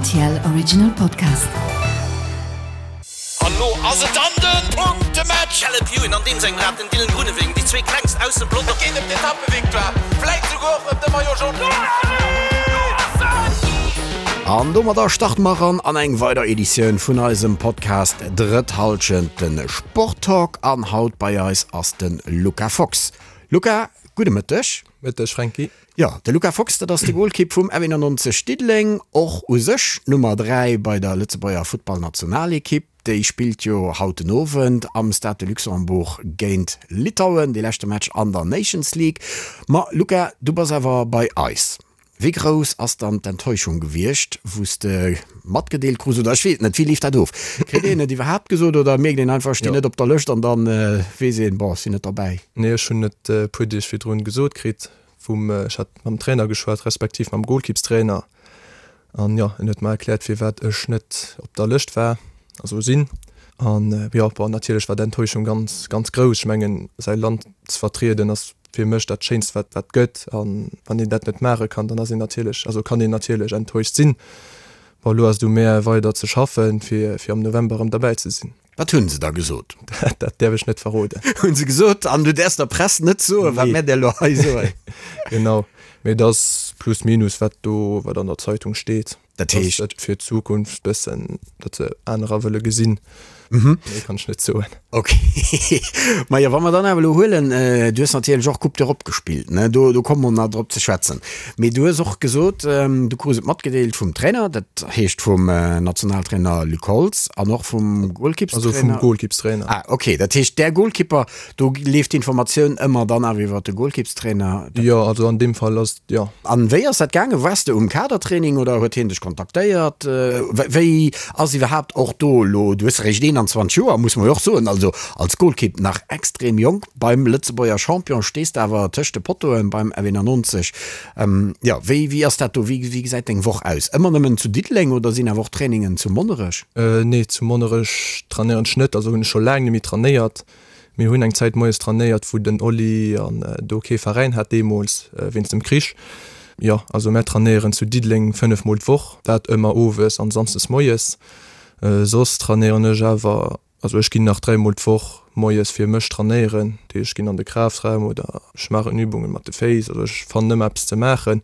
RTL Original Podcast. An lo ass et dann den Punktematch! Caleb Ewan an deem sengem Rad, den Dylan Groenewegen, déi zwee klengst aus dem Pelotong. Et geet ëm d'Etappevictoire, vläit souguer och ëm de Maillot Jaune. An domadder starte mer eran an eng weider Editioun vun eisem Podcast Drëtt Halschent, de Sporttalk. An haut bei eis ass de Luca Fox. Luca, gudde Mëtteg. Mëtteg, Franky. Jo, de Luca Fox, dat ass de Golkipp vum F91 Diddeleng, och u sech d'Nummer 3 bei der Lëtzebuerger Futtballnationalekipp. Déi spillt jo haut den Owend am Stade de Luxembourg géint Litauen, dee leschte Match an der Nations League. Ma Luca, du bass awer bei eis. Wéi grouss ass dann d'Enttäuschung gewiescht, wou s de matgedeelt krus, oder ech weess et net, wéi leeft dat of? Kritt een et iwwerhaapt gesot oder mierkt een einfach, ech stinn net op der Lëscht an dann weess een, bon, ech sinn net derbäi? Nee, ech hunn et e puer Deeg virdrun gesot kritt vum, ech hat mam Trainer geschwat, respektiv mam Golkippstrainer an jo, en huet mer erkläert firwat ech net op der Lëscht war, also sinn. An jo, bon, natierlech war d'Enttäuschung ganz, ganz grouss. Ech mengen, säi Land ze vertrieden ass fir mech dat Schéinst wat wat gëtt an wann een dat net maache kann, dann ass een natierlech, also kann een natierlech enttäuscht sinn. Bon elo ass et u mär weider ze schaffen fir fir am November erëm derbäi ze sinn. Wat hunn se da gesot? Dat däerf ech net verroden. Hunn se gesot, an du däerfs der Press net soen, wat mär der elo hei soen? Genau, mee et ass plus minus wat do wat an der Zeitung steet. Dat heescht. Dass et fir d'Zukunft bëssen, datt se anerer wëlle gesinn. Méi kann ech net soen. Ok. Majo, wa mer dann awer elo huelen, du hues natierlech och Coupe d'Europe gespillt, ne? Do, do komme mer nach drop ze schwätzen. Mee du hues och gesot, du krus et matgedeelt vum Trainer, dat heescht vum Nationaltrainer Luc Holtz an och vum Golkippstrainer. Also vum Golkippstrainer. Ah, ok. Dat heescht, där Golkipper, Do leeft d'Informatioun ëmmer dann awer iwwer de Golkippstrainer? Jo, also an deem Fall ass, jo. An wéi ass dat gaangen? Waars de um Kadertraining oder huet hien dech kontaktéiert? Wéi ass iwwerhaapt och do elo, du hues eréischt 21 Joer, muss mer jo och soen, also als Golkipp nach extrem jonk, beim Lëtzebuerger Champion stees de awer tëscht de Pottoen beim F91. Jo, wéi wéi ass dat do? Wéi wéi gesäit deng Woch aus? Ëmmer nëmmen zu Diddeleng oder sinn awer och Trainingen zu Monnerech? Nee, zu Monnerech trainéieren ech net, also hunn ech scho laang net méi trainéiert. Mir hunn eng Zäit moies trainéiert, wou den Oli an do kee Veräin hat deemools, wéinst dem Krich. Jo, also mär trainéieren zu Diddeleng 5 mol d'Woch, dat ëmmer owes an samsdes moies. Soss trainéieren ech awer, also ech ginn nach 3 mol d'Woch moies fir mech trainéieren, dat heescht ech ginn an de Kraftraum oder ech maachen Übungen mat de Féiss, also ech fannen ëmmer eppes ze maachen.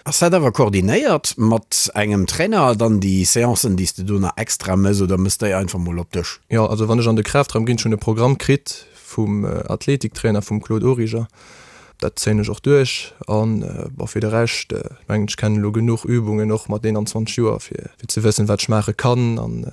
Ass dat awer koordinéiert mat engem Trainer dann déi Seancen déi s de do nach extra mëss oder mëss déi einfach mol op dech? Jo, also wann ech an de Kraftraum ginn, ech hunn e Programm kritt vum Athletiktrainer, vum Claude Origer, dat zéien ech och duerch an bon fir de Rescht mengen ech kennen elo genuch Übungen och mat 21 Joer fir ze wëssen wat ech maache kann an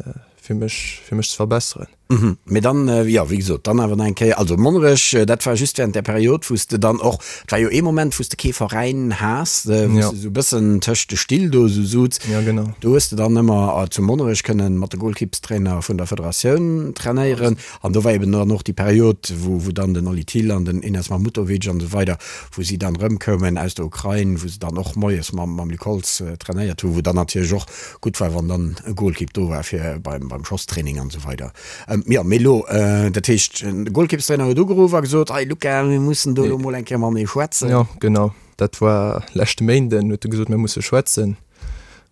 fir mech fir mech ze verbesseren. Mhm. Mee dann, jo, wéi gesot, dann awer nach eng Kéier, also Monnerech, dat war just während där Period, wou s de dann och, et war jo ee Moment, wou s de kee Veräin has, wou s de esou e bëssen tëscht de Still do esou suz. Ja, genau. Do hues de dann ëmmer zu Monnerech kënnen mat de Golkippstrainer vun der Federatioun trainéieren. An do war eben dann och déi Period, wou, wou dann den Oli Thill an den Enes Mahmutovic an esou weider, wou si dann erëmkoumen aus der Ukrain, wou se dann och moies mam, mam Luc Holtz trainéiert hu, wou dann natierlech och Gutt war, wann dann e Golkipp do war fir beim, beim Schosstraining an esou weider. Jo, mee elo, dat heescht, de Golkippstrainer huet ugeruff a gesot, Hey Luca, mir mussen do elo mol eng Kéier matenee schwätzen. Jo, genau. Dat war leschte Méinden, huet e gesot, mir musse schwätzen.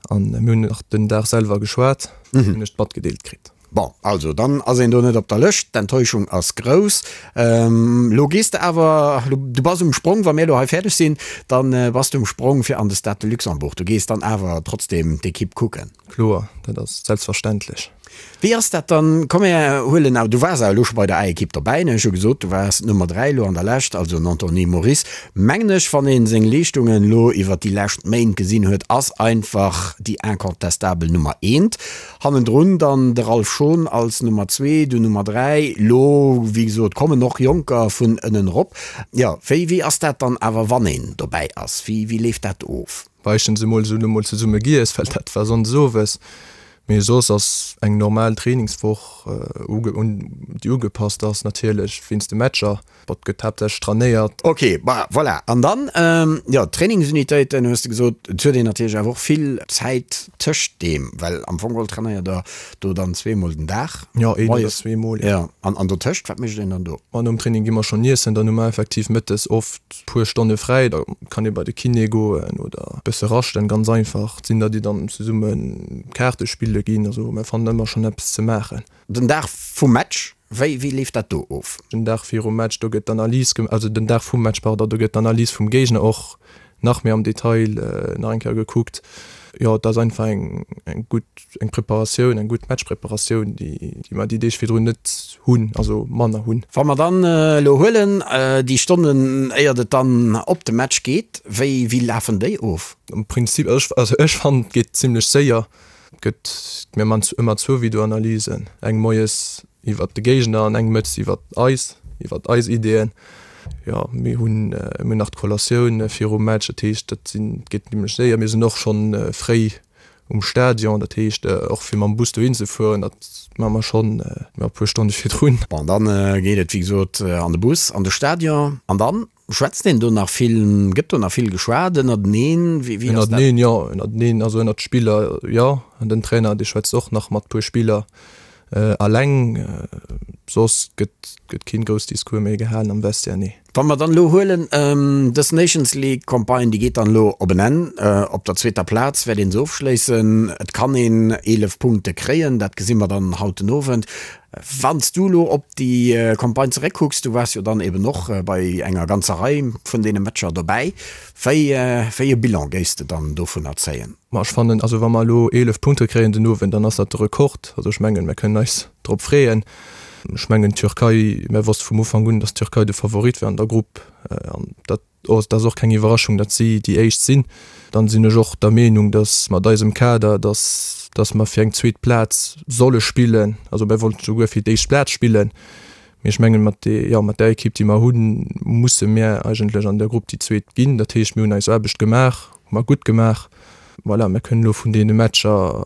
An mir hunn nach den Dag selwer geschwat, hunn ech d'matgedeelt kritt. Bon, also dann ass een do net op der Lëscht, d'Enttäuschung ass grouss. Lo gees de awer, du bass um Sprong, wa mir elo hei fäerdeg sinn, da bass de um Sprong fir an de Stade de Luxembourg. Du gees dann awer trotzdeem d'Ekipp kucken? Kloer, dat ass selbstverständlech. Wéi ass dat dann, komm mir huelen awer, du waars awer elo scho bei der A-Ekipp dobäi, ne? Ech hu gesot, du waars d'Nummer 3 elo an der Lescht, also den Anthony Moris, mengen ech, wann ee seng Leeschtungen elo iwwert déi lescht Méint gesinn huet, ass einfach déi incontestabel Nummer eent. Hannendrun dann de Ralph Schon als Nummer zwee, du Nummer 3. Lo, wéi gesot, kommen och Jonker vun ënnen erop. Jo, wéi, wéi ass dat dann awer, wann een dobäi ass? Wéi, wéi leeft dat of? Meeschtens emol esou, elo mol zesumme giess, well dat war sonndes owes. Mee soss ass eng normal Trainingswoch, déi ugepasst ass natierlech wéinst de Matcher. Bon, et gëtt haaptsächlech trainéiert. Ok, bah voilà. An dann, jo, d'Trainingsunitéiten hues de gesot. Et huet een natierlech awer och vill Zäit tëscht deem, well am Fong geholl trainéiert der do dann zweemol den Dag. Jo, een oder zweemol, jo. Jo, an, an dotëscht, wat mécht een dann do? Ma nom Training gi mer schonn iessen, dann hu mer effektiv mëttes oft puer Stonne fräi, da kann ee bei de Kiné goen oder e bësse raschten, ganz einfach. Et sinn der, déi dann zesumme Kaarte spille ginn, also mer fannen ëmmer schonn eppes ze maachen. Den Dag vum Match, wéi, wéi leeft dat do of? Den Dag virum Match, do gëtt d'Analys gem-, also den Dag vum Match, pardon, do gëtt d'Analys vum Géigner och nach méi am Detail nach eng Kéier gekuckt. Jo, et ass einfach eng, eng gutt, eng Preparatioun, eng gutt Matchpreparatioun, déi, déi mer déi Deeg virdrun net hunn, also manner hunn. Wa mer dann elo huelen, déi Stonnen, éiert et dann op de Match geet, wéi, wéi lafen déi of? Am Prinzip, also ech, also ech fannen, et geet zimlech séier. Et gëtt, mir man ëmmer zwou Videoanalysen, eng moies iwwert de Géigner an eng mëttes iwwert eis, iwwert eis Ideeën. Jo, mir hunn, mir hunn nach d'Collatioun virum Match, dat heescht, dat sinn, et geet zimlech séier. Mir sinn och schonn fréi um Stadion, dat heescht och fir mam Bus dohin ze fueren, dat maache mer schonn e puer Stonne virdrun. Bon, dann geet et wéi gesot an de Bus, an de Stadion an dann Schwätzt een do nach vill, gëtt do nach vill geschwat ënnerteneen? Wéi ass dat? Ënnerteneen, jo. Ënnerteneen, also ënnert Spiller, jo. An den Trainer, dee schwätzt och nach mat puer Spiller alleng. Soss gëtt, gëtt keen grouss Discours méi gehalen am Vestiaire, nee. Wa mer dann elo huelen, dës Nations League Campagne, déi geet dann elo op en Enn. Op der zweeter Plaz wäert een se ofschléissen. Et kann een 11 Punkte kréien, dat gesi mer dann haut den Owend. Wann s du elo op déi Campagne zeréckkucks, du waars jo dann eben och bei enger ganzer Rei vun deene Matcher dobäi, wéi wéi e Bilan géifs de dann dovunner zéien? Ma ech fannen, also wa mer elo 11 Punkte kréien den Owend, dann ass dat de Rekord. Also ech mengen, mer kënnen eis drop freeën. Ech mengen d'Türkei, mer wosste vum Ufank un, datt d'Türkei de Favorit war an der Grupp an dat Et ass och keng Iwwerraschung, datt si déi Éischt sinn. Dann sinn ech och der Meenung, datt mat eisem Kader, datt datt mer fir eng zweet Plaz solle spillen. Also mir wollten souguer fir d'éischt Plaz spillen, mee ech mengen, mat de jo mat där Ekipp, déi mer hunn, musse mir eigentlech an der Grupp déi Zweet ginn. Dat heescht, mir hunn eis Aarbecht gemaach, hu mer gutt gemaach. Voilà, mir kënnen elo vun deene Matcher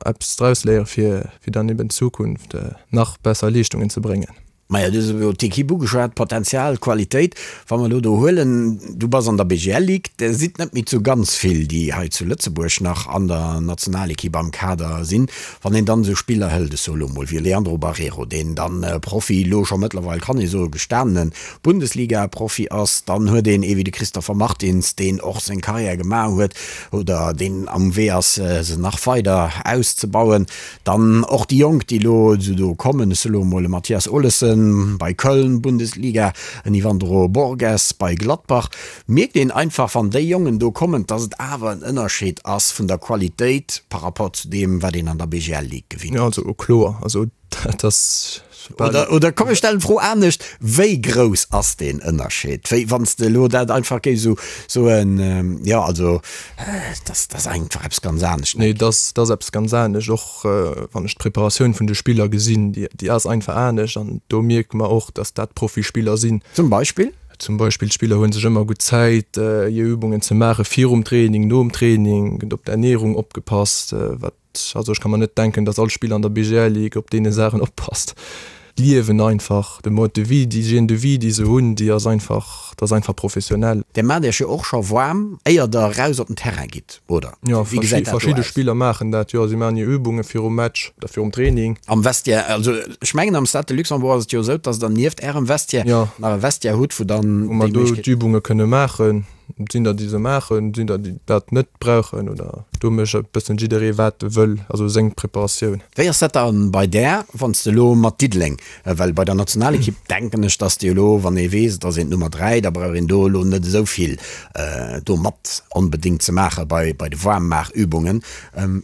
eppes draus léiere fir fir dann eben d'Zukunft nach besser Leeschtungen ze bréngen. Maja, du hues elo d'Ekipp ugeschwat, Potenzial, Qualitéit. Wa mer elo do huelen, du bass an der BGL Ligue, der sidd net méi zu ganz vill, déi hei zu Lëtzebuerg nach an der Nationalekipp am Kader sinn. Wann een dann esou Spiller hëlt, ech soe elo mol wéi Leandro Barreiro, deen dann Profi, elo scho mëttlerweil kann ee soe gestanene Bundesliga-Profi ass, dann huet een ee wéi de Christopher Martins, deen och seng Karriär gemaach huet oder deen am Wee ass, se nach weider auszebauen. Dann och déi Jonk, déi elo esou do kommen, ech soe lo emol e Mathias Olesen bei Köln, Bundesliga, en Yvandro Borges bei Gladbach. Mierkt een einfach, wann déi Jongen do kommen, dass et awer en Ënnerscheed ass vun der Qualitéit par rapport zu deem, wat een an der BGL Ligue gewinnt. Jo, also kloer, also dat ass bal. Oder, oder komm ech stellen d'Fro anescht, Wéi grouss ass deen Ënnerscheed? Wéi, wann s de elo dat einfach géifs esou soen, jo also dat ass einfach eppes ganz anescht. Nee, dat ass eppes ganz anescht. Och wann ech d'Preparatioun vun de Spiller gesinn, déi ass einfach anescht an do mierke mer och, datt dat Profispiller sinn. Zum Beispill? Zum Beispill d'Spiller hu sech ëmmer gutt Zäit hir Übungen ze maache virum Training, nom Training, gëtt op d'Ernierung opgepasst, wat Also ech ka mer net denken, datt all Spiller an der BGL Ligue op deene Saachen oppasst. D'Liewen einfach, de Mode de vie, déi Hygiène de vie, déi se hunn, déi ass einfach, dat ass einfach professionell. Dir maacht Iech jo och scho waarm, éier Der eraus op den Terrain gitt, oder? Jo, Wéi gesäit dat do verschidde aus? Spiller maachen dat, jo. Si maachen hir Übunge virum Match oder virum Training. Am Vestiaire, also ech mengen am Stade de Luxembourg ass et jo esou, datt Der nieft Ärem Vestiaire Jo. nach e Vestiaire hutt, wou dann Wou mer déi do Méiglechkeet. d'Übunge kënne maachen. Et sinn der, déi se maachen, et sinn der, déi dat net brauchen oder do mécht e bëssen jidderee wat e wëll, also seng Preparatioun. Wéi ass dat dann bei där, wann s de elo mat Diddeleng, well bei der Nationalekipp denken ech, dass de elo, wann ee weess, et ass een d'Nummer 3, da brauch een do elo net esou vill do mat onbedéngt ze maache bei bei de Waarmmaachübungen.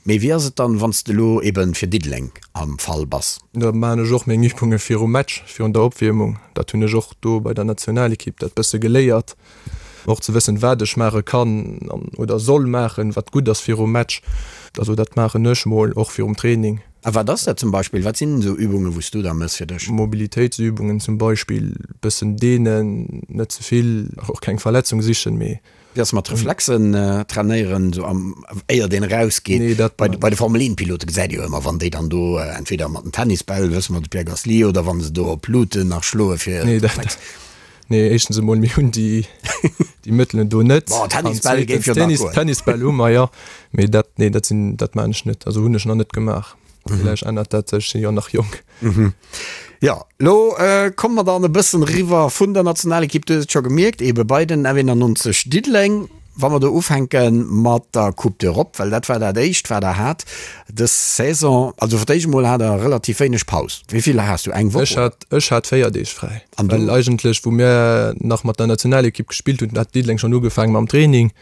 Mee wéi ass et dann, wann s de elo ebe fir Diddeleng am Fall bass? Da maachen ech och meng Übunge virum Match, virun der Opwiermung. Dat hunn ech och do bei der Nationalekipp dat bësse geléiert. Och ze wëssen, wat ech maache kann an oder soll maachen, wat gutt ass virum Match. Also dat maachen ech mol och virum Training. A wat ass dat zum Beispill? Wat sinn esou Übungen, wou s du da mëss fir dech? Mobilitéitsübungen zum Beispill, bëssen deenen, net ze vill, och keng Verletzung sichen, mee. Wéi ass mat Reflexen trainéieren, esou am, éiert een erausgeet? Nee, dat. Bei, bei de Formel 1 Pilote gesäit ee jo ëmmer, wann déi dann do entweder mat den Tennisbäll, wësse mer, de Pierre Gasly, oder wann se do op Luuten nach schloe fir. Nee, dat. Nee, éischtens emol, mir hunn déi, déi Mëttelen do net. Bon, Tennisbäll géif jo nach goen. Tennisbäll hu mer, jo. Mee dat, nee, dat sinn, dat maan ech net. Also hunn ech nach net gemaach. Villäicht ännert dat sech, ech sinn jo nach jonk. Jo, lo komme mer dann e bëssen eriwwer vun der Nationalekipp, du hues et scho gemierkt, eebe bei den F91 Diddeleng. Wa mer do ufänke mat der Coupe d'Europe, well dat war dat éischt, wat der hat dës Saison. Also fir d'éischt emol hat der relativ wéineg Paus. Wéi vill has du? Eng Woch? Ech hat, ech hat 4 Deeg fräi. An du? Well eigentlech, wou mir nach mat der Nationalekipp gespillt hunn, hat Diddeleng schonn ugefaange mam Training.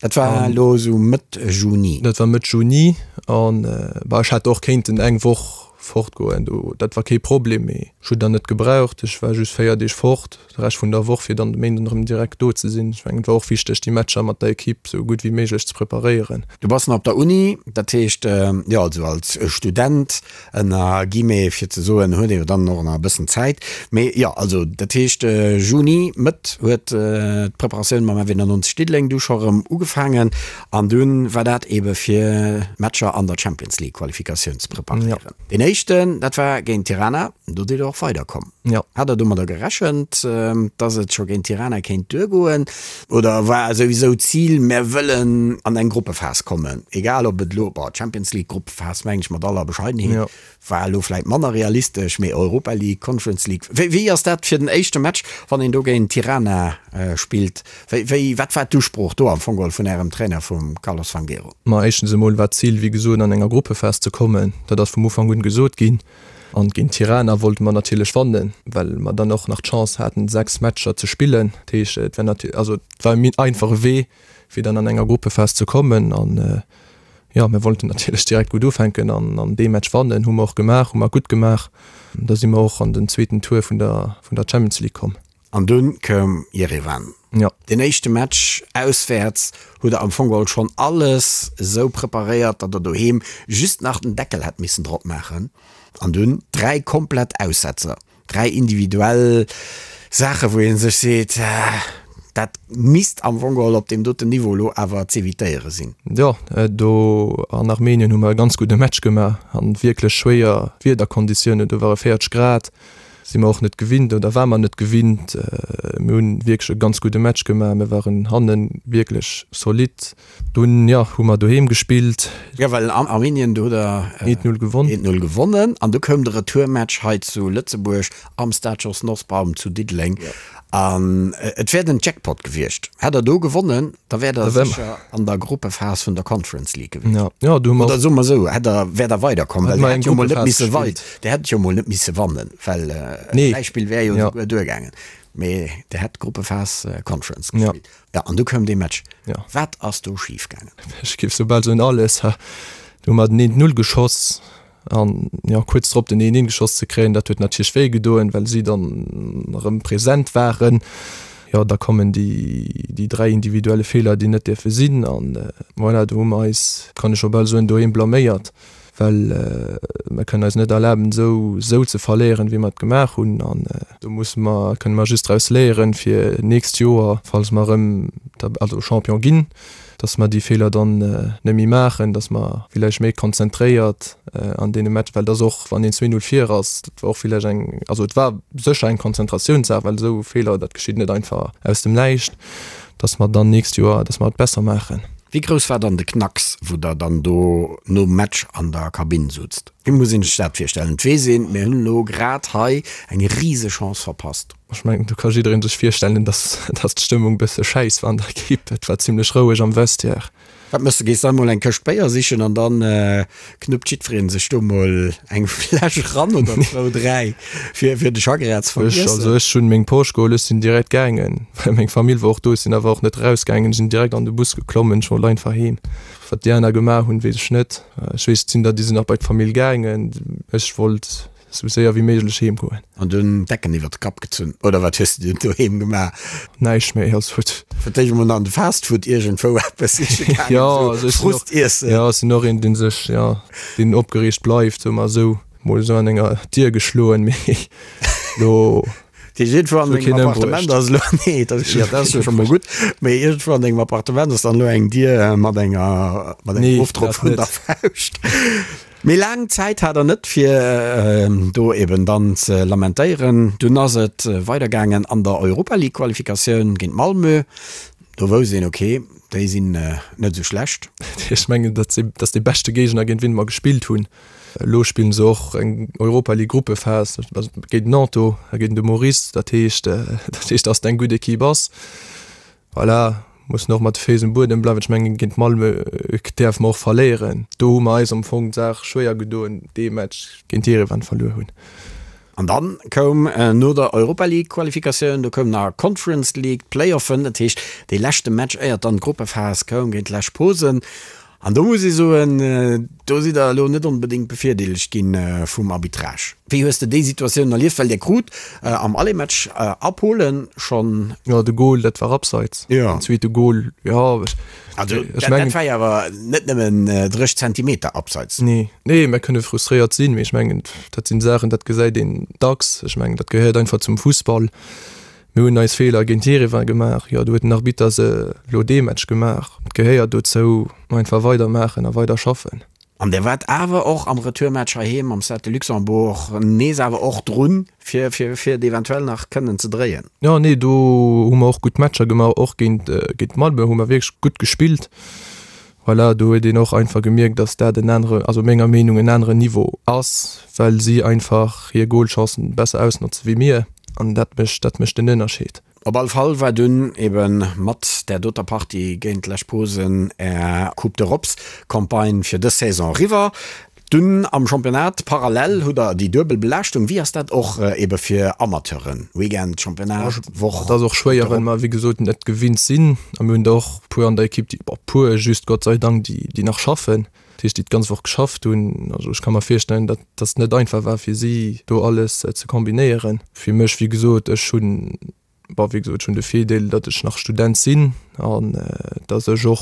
Dat war elo esou Mëtt Juni. Dat war Mëtt Juni an bah, ech hätt och kéinten eng Woch fortgoen, do dat war kee Problem, mee ech hunn dann net gebraucht. Ech war just 4 Deeg fort, de Rescht vun der Woch, fir dann de Méinden erëm direkt do ze sinn. Ech mengen, et war och wichteg, déi Matcher mat der Ekipp esou gutt wéi méiglech ze preparéieren. Du bass nach op der Uni, dat heescht, jo, also als Student ënner Guillemets, fir ze soen, huet ee jo dann och nach e bëssen Zäit. Mee jo, also dat heescht Juni, Mëtt huet d'Preparatioun mam F91 Diddeleng du scho rëm ugefaangen an dunn war dat eebe fir d'Matcher an der Champions League Qualifikatioun ze preparéieren. Deen éischten, dat war géint Tirana, do sidd der och weiderkomm. Hat der domadder gerechent, datt et scho géint Tirana kéint duergoen? Oder war souwisou d'Zil, mär wëllen an eng Gruppephas kommen, egal ob et elo, bon, Champions League Gruppephas mengen ech mat aller Bescheidenheet, war elo vläit manner realistesch, mee Europa League, Conference League, wéi wéi ass dat fir den éischte Match, wann een do géint Tirana spillt? Wéi wéi wat war d'Usprooch do am Fong geholl vun Ärem Trainer, vum Carlos Fangueiro? Ma éischtens emol war d'Zil, wéi gesot, an enger Gruppephas ze kommen. Dat ass vum Ufank un gesot ginn. An géint Tirana wollte mer natierlech wannen, well mer dann och nach d'Chance haten 6 Matcher ze spillen. Dat heescht, et war natierlech, also et war e méi einfache Wee fir dann an enger Gruppephas ze kommen. An jo, mir wollten natierlech direkt gutt ufänken an an dee Match wannen. Hu mer och gemaach, hu mer gutt gemaach. Da si mer och an den zweeten Tour vun der vun der Champions League komm. An dunn koum Jerewan. Jo. Deen éischte Match auswäerts hutt der am Fong geholl schonn alles esou preparéiert, datt der doheem just nach den Deckel hätt missen drop maachen. An dunn 3 komplett Aussetzer, 3 individuell Saachen, wou ee sech seet, dat misst am Fong geholl op deem doten Niveau elo awer z'evitéiere sinn. Jo, do an Armenien hu mer e ganz gudde Match gemaach an wierklech schwéier Wiederkonditiounen, do ware 40 Grad. Si mer och net gewinnt oder war mer net gewinnt. Mir hunn wierklech e ganz gudde Match gemaach. Mir waren hannen wierklech solid. Dunn, jo, hu mer doheem gespillt. Jo, well an Armenien, do hutt der 1-0 gewonnen. 1-0 gewonnen an du koum de Retourmatch hei zu Lëtzebuerg am Stade Jos Nosbaum zu Diddeleng. An et wär den Jackpot gewiescht. Hätt der do gewonnen, da wäert der sécher an der Gruppephas vun der Conference League gewiescht. Ja, ja, do hu mer Oder soe mer esou, hätt der, wäert der weiderkomm, well der hätt jo mol net misse wei, der hätt jo mol net misse wannen, well e Gläichspill wär jo esouguer duergaangen. Mee der hätt d'Gruppephas Conference gespillt. Ja, an du koum dee Match. Wat ass do schif gaangen? Ech géif soubal soen alles. Do hu mer den 1-0 geschoss. An jo, kuerz drop den 1-1 geschoss ze kréien, dat huet natierlech wéi gedoen, well si dann erëm present waren. Jo, da kommen déi, déi 3 individuelle Feeler, déi net dierfe sinn. An voilà, do hu mer eis, kann ech scho bal soen, doheem blaméiert, well mer kënnen eis net erlaben, esou, esou ze verléieren, wéi mer et gemaach hunn. An do musse mer, kënne mer just draus léieren, fir nächst Joer, falls mer erëm, also Champion ginn, dass mer déi Feeler dann net méi maachen, dass mer villäicht méi konzentréiert an deene Match, well et ass och, wann een 2, 0 vir ass, dat war och villäicht eng, also et war sécher eng Konzentratiounssaach, well esou Feeler, dat geschitt net einfach aus dem Näischt, dass mer dann nächst Joer, dass mer et besser maachen. Wéi grouss war dann de Knacks, wou der dann do nom Match an der Kabinn sutzt? Wéi muss een sech dat virstellen? Et weess een, mir hunn elo grad hei eng Risechance verpasst. Ech mengen, do ka jiddereen sech virstellen, dass, dass d'Stëmmung bësse schäiss war an der Ekipp. Et war zimlech roueg am Vestiaire. Wat méchs de? Gees de emol eng Këscht Béier sichen an dann knuppt jiddwereen sech do mol eng Fläsch eran oder zwou, dräi, fir, fir de Chagrin ze Ech, vergiessen? also ech hunn meng Posch geholl, ech sinn direkt gaangen, well meng Famill war och do. Ech sinn awer och net erausgaangen, ech sinn direkt an de Bus geklommen, ech wollt einfach heem. Wat déi aner gemaach hunn, weess ech net. Ech weess, et sinn der, déi sinn nach bei d'Famill gaangen. Ech wollt Sou séier wéi méiglech heem goen. An dunn d'Decken iwwert de Kapp gezunn, oder wat hues de dunn doheem gemaach? Näischt méi, also huet. Fir d'éischt emol an de Fastfood iergendwou eppes siche gaangen, Jo, also ech sinn och, Frust iessen. jo, ech sinn och een, dee sech, jo, deen opgereegt bleift, soe mer esou. Mol esou an enger Dier geschloen, mee lo. Dat heescht, iergendwou an dengem Appartement ass elo, nee, dat ass, jo, dat ass jo scho mol gutt, mee iergendwou an dengem Appartement ass dann elo eng Dier mat enger, mat engem Ofdrock vun der Fauscht. Mee laang Zäit hat der net, fir do eben dann ze lamentéieren. Dunn ass et weidergaangen an der Europa League Qualifikatioun géint Malmö. Do wousst een, ok, déi sinn net esou schlecht. Ech mengen, dat ass dee beschte Géigner, géint wien mer gespillt hunn. Elo spillen se och eng Europa League Gruppephas géint Nantes a géint de Maurice. Dat heescht, dat heescht, datt et eng gutt Ekipp ass. Voilà, mussen och mat de Féiss um Buedem bleiwen. Ech mengen, géint Malmö däerfe mer och verléieren. Do hu mer eis am Fong d'Saach schwéier gedoen, dee Match géint Jerewan verluer hunn. An dann koum no der Europa League Qualifikatioun, do koum nach Conference League, d'Playoffen, dat heescht dee leschte Match éiert dann d'Gruppephas koum géint Lech Posen. An do muss ee soen, do sidd der elo net onbedéngt bevirdeelegt gi vum Arbitrage. Wéi hues de déi Situatioun erlieft? Well Dir krut am Aller-Match a Polen schonn. Jo, de Gol, dat war abseits. Jo. Den zweete Gol, jo. Also dat dat war jo awer net nëmmen 30 Zentimeter abseits. Nee, nee, mir kënne frustréiert sinn, mee ech mengen, dat sinn Saachen, dat gesäit een dacks. Ech mengen, dat gehéiert einfach zum Fussball. Mir hunn eis Feeler géint Jerewan gemaach, jo, do huet den Arbitter se elo dee Match gemaach. Et gehéiert dozou, einfach weidermaachen a weider schaffen. An der waart awer och am Retourmatch heiheem am Stade de Luxembourg nees awer och drun, fir fir et eventuell nach kënnen ze dréien. Jo, nee, do hu mer och gutt Matcher gemaach, och géint géint Malmö hu mer wierklech gutt gespillt. Voilà, do huet een och einfach gemierkt, datt dat en anere, also menger Meenung en aneren Niveau ass, well si einfach hir Golchancen besser ausnotze wéi mir an dat mécht dat mécht den Ënnerscheed. Op all Fall war dunn eben mat där doter Partie géint Lech Posen är Coupe d'Europes Campagne fir dës Saison eriwwer. Dunn am Championnat parallel hutt der déi duebel Belaaschtung. Wéi ass dat och ebe fir Amateuren? Weekend, Championnat, Woch, Et ass och schwéier, well mer wéi gesot net gewinnt sinn a mir hunn der och puer an der Ekipp, déi, bon puer just Gott sei Dank, déi déi nach schaffen, dat heescht déi d'ganz Woch geschafft hunn. Also ech ka mer virstellen, datt datt et net einfach war fir si do alles ze kombinéieren. Fir mech wéi gesot, ech hunn Bon, wéi gesot, ech hunn de Virdeel, datt ech nach Student sinn an datt ech och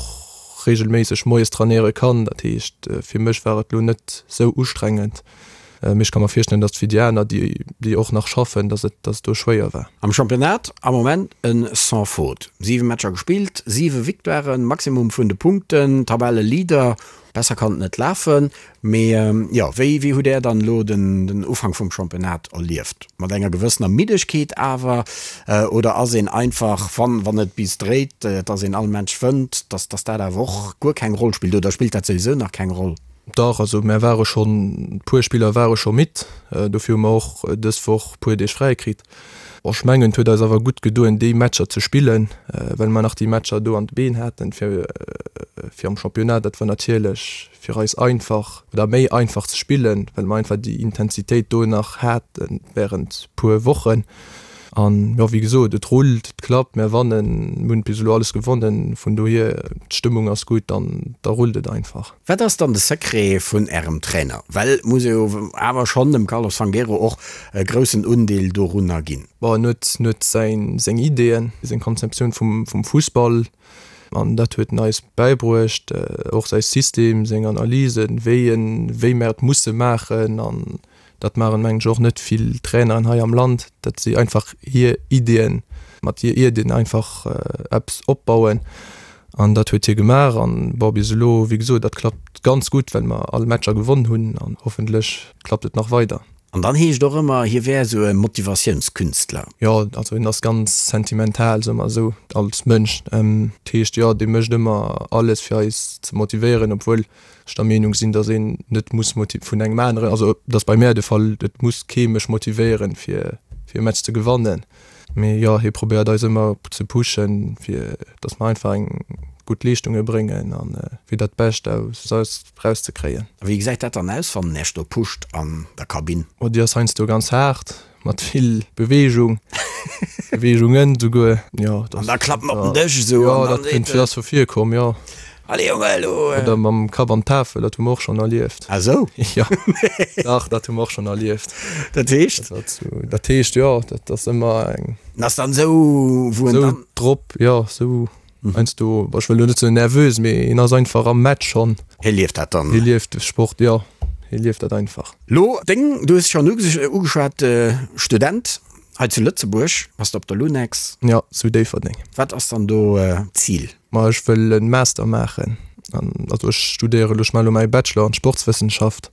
reegelméisseg moies trainéiere kann. Dat heescht, fir mech war et elo net sou ustrengend. Mee ech ka mer virstellen, datt et fir déi aner, déi, déi och nach schaffen, datt et, datt et do schwéier war. Am Championnat am Moment en sans faute. 7 Matcher gespillt, 7 Victoiren, Maximum vun de Punkten, Tabelleleader. Besser kann et net lafen. Mee jo, wéi wéi hutt Där dann elo den den Ufank vum Championnat erlieft? Mat enger gewëssener Middegkeet awer, oder ass een einfach, wann wann et bis dréit, dass een all Match wënnt, dass dass dat awer och guer keng Roll spillt, oder spillt dat souwisou nach keng Roll? Dach, also mär ware schonn, puer Spiller ware scho midd, dofir hu mer och dës Woch puer Deeg fräi kritt. Ech mengen, et huet eis awer gutt gedoen, déi Matcher ze spillen, well mer nach déi Matcher do an de Been haten, fir fir am Championnat. Dat war natierlech fir eis einfach oder méi einfach ze spillen, well mer einfach déi Intensitéit do nach hate wärend puer Wochen. An jo, wéi gesot, et rullt, et klappt, mer wannen, mir hunn bis elo alles gewonnen, vun dohier, d'Stëmmung ass gutt an da rullt et einfach. Wat ass dann de Secret vun Ärem Trainer? Well et muss ee jo awer schonn dem Carlos Fangueiro och e groussen Undeel dorunner ginn. Bon, en huet, en huet säin, seng Ideeën, seng Konzeptioun vum, vum Fussball an dat huet en eis bäibruecht, och säi System, seng Analysen, wéi en, wéi mer et musse maachen an Dat maachen, mengen ech, och net vill Traineren hei am Land, datt si einfach hir Iddien, mat hir Iddien einfach eppes opbauen. An dat huet hie gemaach. An, bon, bis elo, wéi gesot, dat klappt ganz gutt, well mer all Matcher gewonn hunn. An hoffentlech klappt et nach weider. An dann heescht och ëmmer, hie wär esou e Motivatiounskünstler. Jo, also hien ass ganz sentimental, soe mer esou, als Mënsch. Dat heescht, jo, dee mécht ëmmer alles, fir eis ze motivéieren, obwuel ech der Meenung sinn, dass een net muss vun engem aneren, also dat ass bei mär de Fall, et muss kee mech motivéieren, fir fir e Match ze gewannen. Mee jo, hie probéiert eis ëmmer ze pushen, fir dass mer einfach eng gutt Leeschtunge bréngen a fir dat Bescht aus eis erauszekréien. A wéi gesäit dat dann aus, wann en Iech do pusht an der Kabinn? Oh, déi ass heiansdo ganz haart. Mat vill Beweegung, Beweegungen souguer, jo. An da klappen op den Dësch esou. Jo, dat kënnt, dat ass scho virkomm, jo. Allez Jonge, elo. Oder mam Kapp an d'Tafel, dat hu mer och schonn erlieft. Ah sou? Jo, dach, dat hu mer och schonn erlieft. Dat heescht? Dat heescht, jo, dat ass ëmmer eng. En ass dann esou, wou en dann. Esou drop, jo, esou heiansdo, ech wëll elo net soen nervös, mee en ass einfach am Match schonn. Hie lieft dat dann. Hie lieft de Sport, jo, hie lieft dat einfach. Lo deng, du hues schonn ugeschwat, Student. Hei zu Lëtzebuerg bass de op der Lunex. Jo, zu Déifferdeng. Wat ass dann do d'Zil? Ma ech wëll en Master maachen. An also ech studéiere elo, ech maache elo mäi Bachelor an Sportswëssenschaft.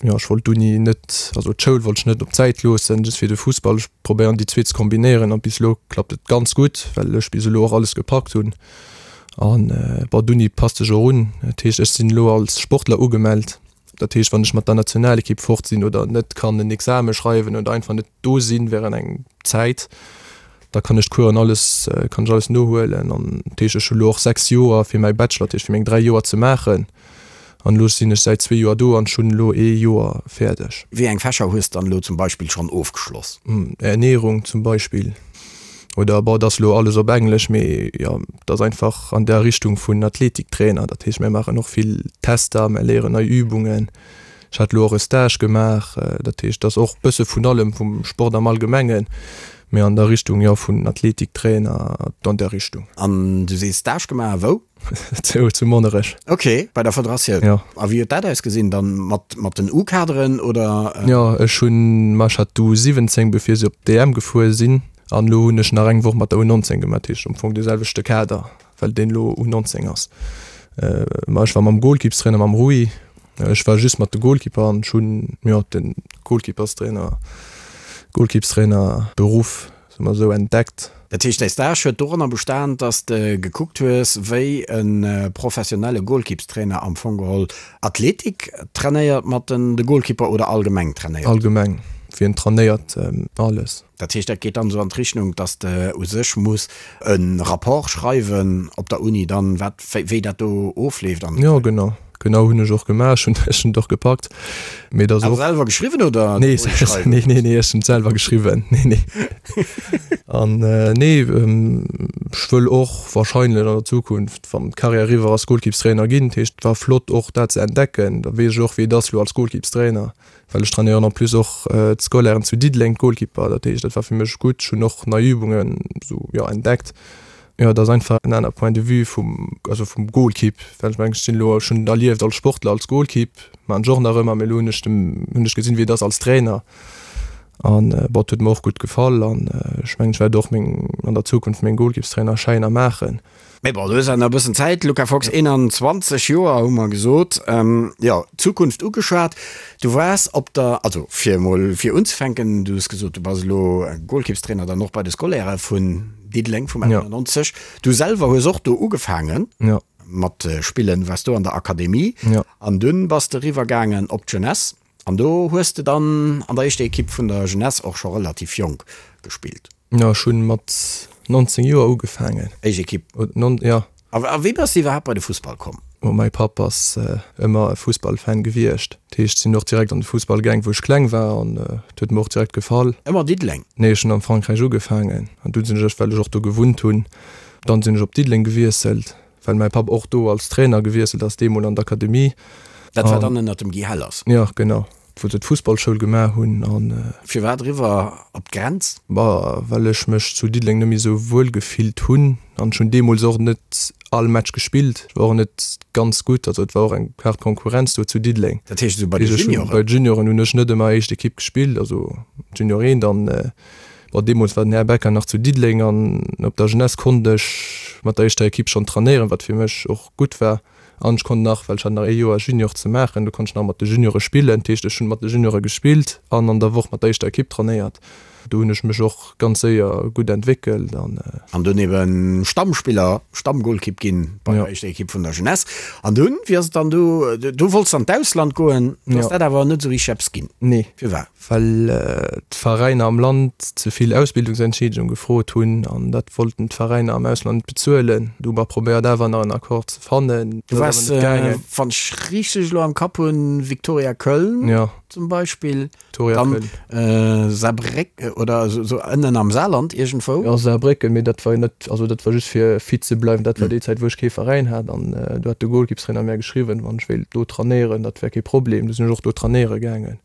Jo, ech wollt d'Uni net, also d'Schoul wollt ech net op d'Säit loossen, just fir de Fussball. Ech probéieren déi zwee ze kombinéieren an bis elo klappt et ganz gutt, well ech bis elo och alles gepackt hunn. An bon, d'Uni passt sech och un. Dat heescht, ech sinn elo als Sportler ugemellt. Dat heescht, wann ech mat der Nationalekipp fort sinn oder net kann en Exame schreiwen oder einfach net do sinn während eng Zäit, da kann ech d'Coursen alles, kann ech alles nohuelen. An dat heescht, ech hu lo och 6 Joer fir mäi Bachelor, dat heescht fir meng 3 Joer ze maachen. An elo sinn ech säit zwee Joer do an ech hunn elo ee Joer fäerdeg. Wéi eng Fächer hues dann elo zum Beispill schonn ofgeschloss? Ernährung zum Beispill. Oder bon, et ass elo alles op Englesch, mee jo, et ass einfach an der Richtung vun Athletiktrainer. Dat heescht, mir maachen och vill Tester, mir léieren nei Übungen. Ech hat elo och e Stage gemaach. Dat heescht, et ass och bësse vun allem, vum Sport am Allgemengen, mee an der Richtung, jo, vun Athletiktrainer, an där Richtung. An du sees Stage gemaach, wou? Zu, zu Monnerech. Ok, bei der Federatioun. Jo. A wéi huet dat ausgesinn dann? Mat, mat den U-Kaderen oder? Jo, ech hunn, ma ech hat d'U 17 bevir se op d'EM gefuer sinn an elo hunn ech nach eng Woch mat der U 19 gemaach, dat heescht am Fong de selwechte Kader, well deen elo U 19 ass. Ma ech war mam Goalkeepstrainer, mam Rui, ech war just mat de Goalkeeper an ech hunn, jo, de Goalkeeperstrainer, Goalkeepstrainer Beruff Soe mer esou, entdeckt. Dat heescht, däi Stage huet doranner bestan, dass de gekuckt hues, wéi e professionelle Goalkeepstrainer am Fong geholl Athletik trainéiert mat den de Goalkeeper oder allgemeng trainéiert? Allgemeng, wéi en trainéiert, alles. Dat heescht, dat geet dann esou an d'Richnung, dass de u sech muss e Rapport schreiwen op der Uni dann, wat, wéi dat do ofleeft an. Jo, genau. Genau hunn ech och gemaach, ech hunn ech hunn et och gepackt, mee et ass och. Selwer geschriwwen oder Nee, nee, nee, nee, ech hunn et selwer geschriwwen, nee, nee. An nee, ech wëll och wahrscheinlech an der Zukunft, wann d'Carrière eriwwer ass, Goalkeepstrainer ginn. Dat heescht, et war flott och dat ze entdecken, da weess ech och wéi et ass elo als Goalkeepstrainer, well ech trainéieren en plus och d'Scolairen zu Diddeleng, d'Goalkeeper. Dat heescht, dat war fir mech gutt, ech hunn och nei Übungen esou, jo, entdeckt. Jo, et ass einfach en aner Point de vue vum, also vum Golkipp, well ech mengen, ech sinn elo, ech hunn et erlieft als Sportler, als Golkipp, maachen ech och nach ëmmer, mee elo hunn ech dem, hunn ech gesinn, wéi et ass als Trainer an bon, et huet mer och gutt gefall an ech mengen, ech wäert och meng, an der Zukunft meng Golkippstrainerschäiner maachen. Mee bon, du hues awer nach e bëssen Zäit, Luca Fox, 21 Joer hu mer gesot, jo, d'Zukunft ugeschwat. Du waars op der, also fir emol fir unzefänken, du hues gesot, du bass elo Golkippstrainer dann och bei de Scolairë vun Diddeleng vum 91. Du selwer hues och do ugefaangen mat spillen, waars do an der Akademie an dunn bass de eriwwer gaangen op d'Jeunesse an do hues de dann an der éischter Ekipp vun der Jeunesse och scho relativ jonk gespillt. Jo, ech hunn mat 19 Joer ugefaangen. Éischt Ekipp? Jo. A wéi bass de iwwerhaapt bei de Fussball komm? Oh, mäi Papp ass ëmmer e Fussballfan gewiescht. Dat heescht, sinn och direkt an de Fussball gaang, wou ech kleng war an et huet mer och direkt gefall. Ëmmer Diddeleng? Nee, ech hunn am Frankräich ugefaangen an dunn sinn ech, well ech och do gewunnt hunn, dann sinn ech op Diddeleng gewiesselt, well mäi Papp och do als Trainer gewiesselt ass, deemol an d'Akademie. Dat war dann ënnert dem Guy Hellers? Jo, genau. Wou se d'Fussballschoul gemaach hunn an. Firwat eriwwer op d'Grenz? Bah, well ech mech zu Diddeleng net méi esou wuel gefillt hunn an ech hunn deemools och net all Match gespillt. Ech war och net ganz gutt, also et war och eng haart Konkurrenz do zu Diddeleng. Dat heescht esou bei de Junioren? Bei de Junioren hunn ech net ëmmer éischt Ekipp gespillt, also Junior 1 dann. Bon, deemools war den Här Becker nach zu Diddeleng an op der Jeunesse konnt ech mat der éischter Ekipp schonn trainéieren, wat fir mech och gutt war. An ech konnt nach, well ech hat nach ee Joer Junior ze maachen, do konnt ech nach mat de Juniore spillen. Dat heescht, ech hunn mat de Juniore gespillt an an der Woch mat der éischter Ekipp trainéiert. Do hunn ech mech och ganz séier gutt entwéckelt an. An dunn eben Stammspiller, Stammgolkipp ginn bei der éischter Ekipp vun der Jeunesse. An dunn, wéi ass et dann du, du wollts an d'Ausland goen, do ass dat awer net esou richteg eppes ginn. Nee. Firwat? Well d'Veräiner am Land ze vill Ausbildungsentschiedegung gefrot hunn an dat wollten d'Veräiner am Ausland net bezuelen. Du hu mer probéiert awer nach en Accord ze fannen. Du waars, wann ech richteg elo am Kapp hunn, Viktoria Köln zum Beispill, dann Saarbrécken oder esou ënnen am Saarland iergendwou. Jo, Saarbrécken, mee dat war jo net, also dat war just fir fit ze bleiwen. Dat war déi Zäit wou ech kee Veräin hat an do hat de Golkippstrainer mär geschriwwen, wann ech wéilt do trainéieren, dat wär kee Problem. Du sinn ech och do trainéiere gaangen.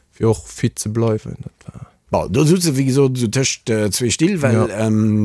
Fir och fit ze bleiwen. Dat war. Bon, do sutz de wéi gesot esou tëscht zwee Still, well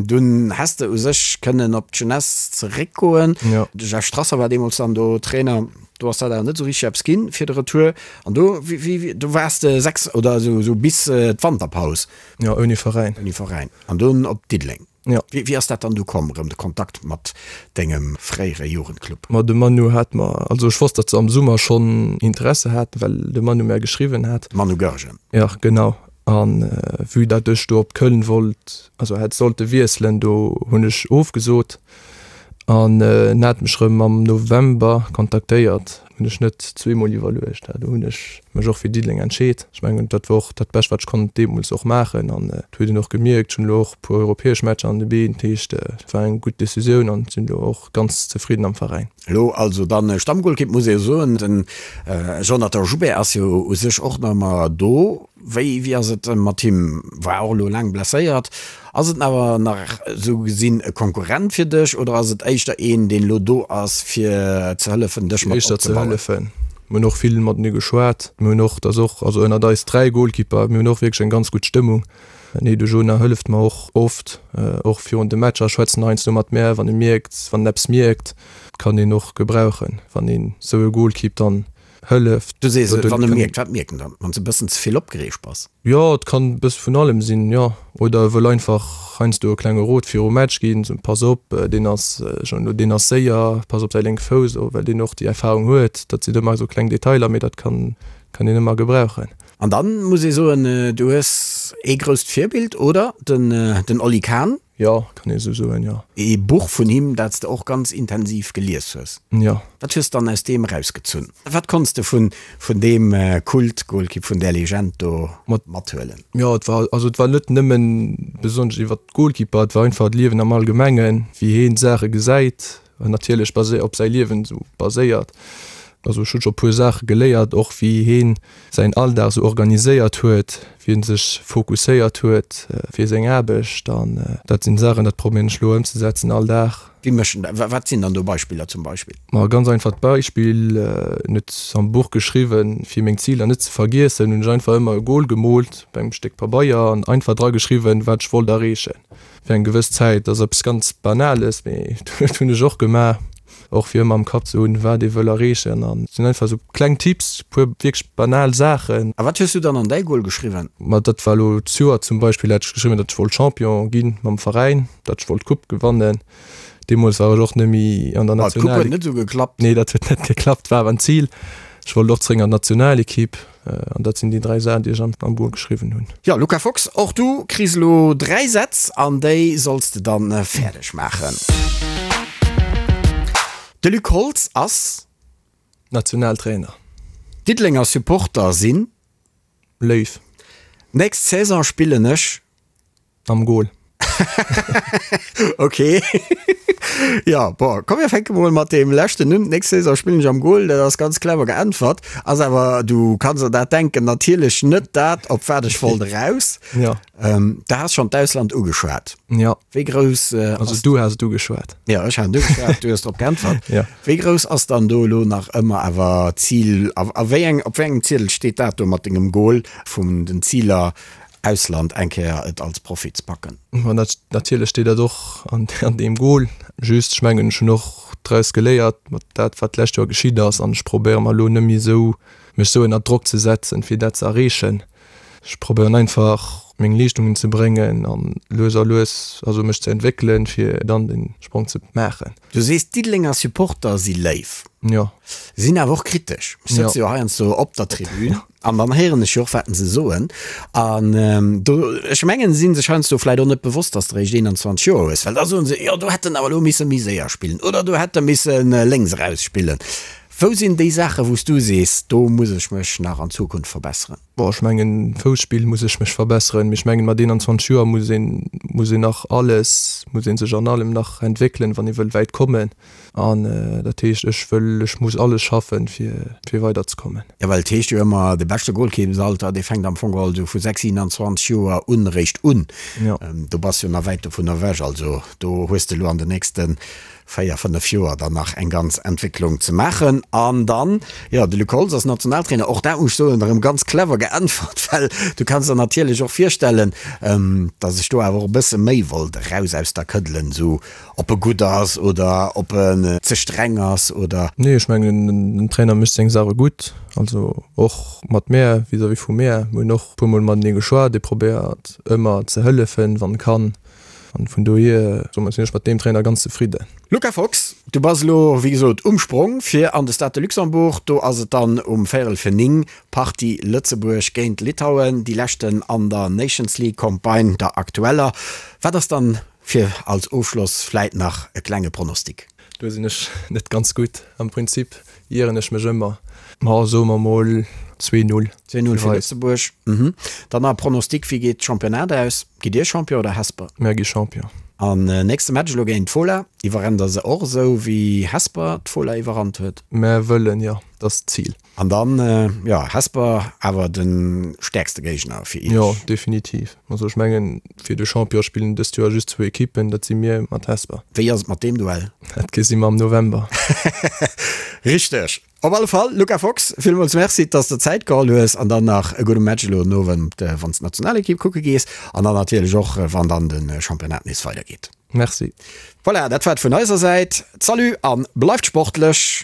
dunn häss de u sech kënnen op d'Jeunesse zeréckgoen. De Jeff Strasser war deemools dann do Trainer, do ass dat awer net esou richteg eppes ginn fir de Retour. An do, wéi, do waars de 6 oder esou esou bis d'Wanterpaus. Jo, ouni Veräin. Ouni Veräin. An dunn op Diddeleng. Jo. Wéi ass dat dann du komm, erëm de Kontakt mat dengem fréiere Jugendclub? Ma de Manu hat mer, also ech wosst, datt se am Summer schonn Interesse haten, well de Manu mär geschriwwen hat. Manu Goergen. Jo, genau. A vue datt ech do op Köln wollt, also hätt sollte wiesselen, do hunn ech ofgesot. An en hat mech erëm am November kontaktéiert. Hunn ech net zweemol iwwerluecht. Do hunn ech mech och fir Diddeleng entscheet. Ech mengen, dat war och dat Bescht, wat ech konnt deemools och maachen. An et huet een och gemierkt, ech hunn elo och e puer europäesch Matcher an de Been. Dat heescht, et war eng gutt Decisioun an sinn elo och ganz zefridden am Veräin. Elo also dann Stammgolkipp, muss ee jo soen. Den Jonathan Joubert ass jo u sech och nach ëmmer do. Wéi wéi ass et mat him? War och elo laang blesséiert. Ass et awer nach esou gesinn e Konkurrent fir dech oder ass et éischter een, deen elo do ass fir ze hëllefen, dech mat Éischter ze opzebauen? hëllefen. Mir hunn och vill matenee geschwat. Mir hunn och, dat ass och, also ënnert eis 3 Goalkeeper, mir hunn och wierklech eng ganz gutt Stëmmung. Nee, de Jonah hëlleft mer och oft, och virun de Matcher schwätzt en heiansdo mat mär, wann e mierkt, wann en eppes mierkt. Kann een och gebrauchen, wann een esou e Goalkeep dann hëlleft. Du sees, wann e mierkt, wat mierkt en dann? Wann s e bëssen ze vill opgereegt bass? Jo, et kann e bësse vun allem sinn, jo. Oder e wëll einfach heiansdo e klenge Rot virum Match ginn, sou, pass op, deen ass schon elo, deen ass séier, pass op säi lénke Fouss, well deen och déi Erfarung huet. Dat sinn ëmmer esou kleng Detailer, mee dat kann, kann een ëmmer gebrauchen. An dann muss ee soen, du hues ee grousst Virbild, oder? Den, den Oli Kahn. Jo, kann ee sou soen, jo. Ee Buch vun him, dat s de och ganz intensiv gelies hues. Jo. Wat hues de dann aus deem erausgezunn? Wat konns de vun vun deem Kult-Golkipp, vun där Legend do mathuelen? Jo, et war, also et war net nëmmen besonnesch iwwer d'Golkipper, et war einfach d'Liewen am Allgemengen, wéi heen d'Saache gesäit, natierlech basé op säi Liewen esou baséiert. Also ech hunn scho puer Saache geléiert, och wéi heen säin Alldag sou organiséiert huet, wéi en sech fokusséiert huet fir seng Aarbecht an dat sinn Saachen, dat probéieren ech elo ëmzesetzen all Dag. Wéi mécht en dat? Wat sinn dann do Beispiller zum Beispill? Ma e ganz einfacht Beispill, en huet am Buch geschriwwen, fir meng Ziler net ze vergiessen, hunn ech einfach ëmmer e Goal gemoolt op engem Stéck Pabeier an einfach dra geschriwwen, wat ech wollt erreechen fir eng gewëss Zäit. Dat ass eppes ganz Banales, mee dat hunn ech och gemaach. Och fir ëmmer am Kapp ze hunn, wat ee wëll erreechen. An et sinn einfach esou kleng Tipps, e puer wierklech banal Saachen. A wat hues du dann an däi Goal geschriwwen? Ma dat war elo d'Joer zum Beispill, hat ech geschriwwen, datt ech wollt Champion gi mam Veräin, datt ech wollt d'Coupe gewannen. Deemools war ech och net méi an der National. D'Coupe huet net esou geklappt. Nee, dat huet net geklappt, war awer en Zil. Ech wollt och zeréck an d'Nationalekipp. An dat sinn déi 3 Saachen, déi ech am Goal geschriwwen hunn. Jo, Luca Fox, och du kriss elo 3 Sätz an déi solls de dann fäerdeg maachen. De Luc Holtz ass. Nationaltrainer. Diddelenger Supporter sinn. Léif. Nächst Saison spillen ech. Am Goal. Ok. Jo, bon, komm mir fänke mol mat deem leschten un. D'nächst Saison spillen ech am Goal, dat ass ganz clever geäntwert. Ass awer, du kanns der dat denken, natierlech net dat, op wat ech wollt eraus. Jo. Du has schonn d'Ausland ugeschwat. Jo. Wéi grouss ass. Also du has et ugeschwat. Jo, ech hat et ugeschwat, du hues drop geäntwert. Jo. Wéi grouss ass dann do elo nach ëmmer awer d'Zil a wéi eng, op wéi engem Ziedel steet dat do mat dengem Goal vun den Ziler Ausland eng Kéier et als Profi ze packen. Ma natierlech steet dat och an deem Goal. Just, ech mengen, ech hunn och draus geléiert mat dat, wat d'lescht Joer geschitt ass an ech probéiere mer elo net méi esou, mech esou ënner Drock ze setzen, fir dat ze erreechen. Ech probéieren einfach, meng Leeschtungen ze bréngen an lues a lues, also mech ze entwéckelen, fir dann de Sprong ze maachen. Du sees, d'Diddelenger Supporter si léif. Jo. Sinn awer och kritesch. Ech sëtze jo heiansdo op der Tribün. An dann héieren ech jo och, wat se soen. An do, ech mengen, si sech heiansdo vläicht och net bewosst, dass de réischt 21 Joer hues, well da soen se, jo do hätt en awer elo misse méi séier spillen oder do hätt e misse lénks eraus spillen. Wou sinn déi Saachen, wou s du sees, do muss ech mech nach an Zukunft verbesseren? Bon, ech mengen, Fousspill muss ech mech verbesseren, mee ech mengen, mat 21 Joer muss een, muss een nach alles, muss ee sech an allem nach entwéckelen, wann ee wëll wäit kommen. An dat heescht, ech wëll, ech muss alles schaffen, fir, fir weiderzekommen. Jo, well et heescht jo ëmmer, de beschte Golkippsalter, dee fänkt am Fong geholl esou vu 6, 27 Joer un eréischt un. Jo. Do bass jo nach wäit dovun ewech. Also do hues de elo an den nächste 4, 5 Joer dann nach eng ganz Entwécklung ze maachen. An dann, jo, de Luc Holtz ass Nationaltrainer, och dat muss ech soen, erëm ganz clever. geäntwert, well du kanns der natierlech och virstellen, dass ech do awer och e bësse méi wollt eraus aus der këddelen, esou ob e gutt ass oder ob en ze streng ass oder. Nee, ech mengen den Trainer mécht seng Saache gutt, also och mat mär, vis-à-vis vu mär. Mir hunn och e puermol matenee geschwat, e probéiert ëmmer ze hëllefen, wann e kann. An vun dohier soen sinn ech mat deem Trainer ganz zefridden. Luca Fox, du bass elo wéi gesot um Sprong fir an de Stade de Luxembourg. Do ass et dann um véierel fir 9, Partie Lëtzebuerg géint Litauen, déi leschten an der Nations League Campagne, der aktueller. Wat ass dann fir als Ofschloss vläit nach e klenge Pronostic? Do sinn ech net ganz gutt. Am Prinzip ieren ech mech ëmmer. Ma soe mer mol 2-0. 2-0 fir Lëtzebuerg. Dann nach e Pronostic, wéi geet d'Championnat aus? Gitt Dir Champion oder Hesper? Mär gi Champion. An nächste Match elo géint d'Fola. Iwwerrennt der se och esou wéi Hesper d'Fola iwwerrannt huet? Mär wëllen, jo. Dat ass d'Zil. An dann, jo, Hesper awer de stäerkste Géigner fir Iech? Jo, definitiv. Also ech mengen, fir de Champion spillen dëst Joer just zwou Ekippen, dat si mir mat Hesper. Wéi ass et mat deem Duell? Dat gesi mer am November. Richteg. Op alle Fall, Luca Fox, villmools Merci, dass de Zäit geholl hues an dann nach e gudde Match elo den Owend, wann s d'Nationalekipp kucke gees an dann natierlech och, wann dann de Championnat nees weidergeet. Merci. Voilà, dat war et vun eiser Säit. Salut a bleift sportlech!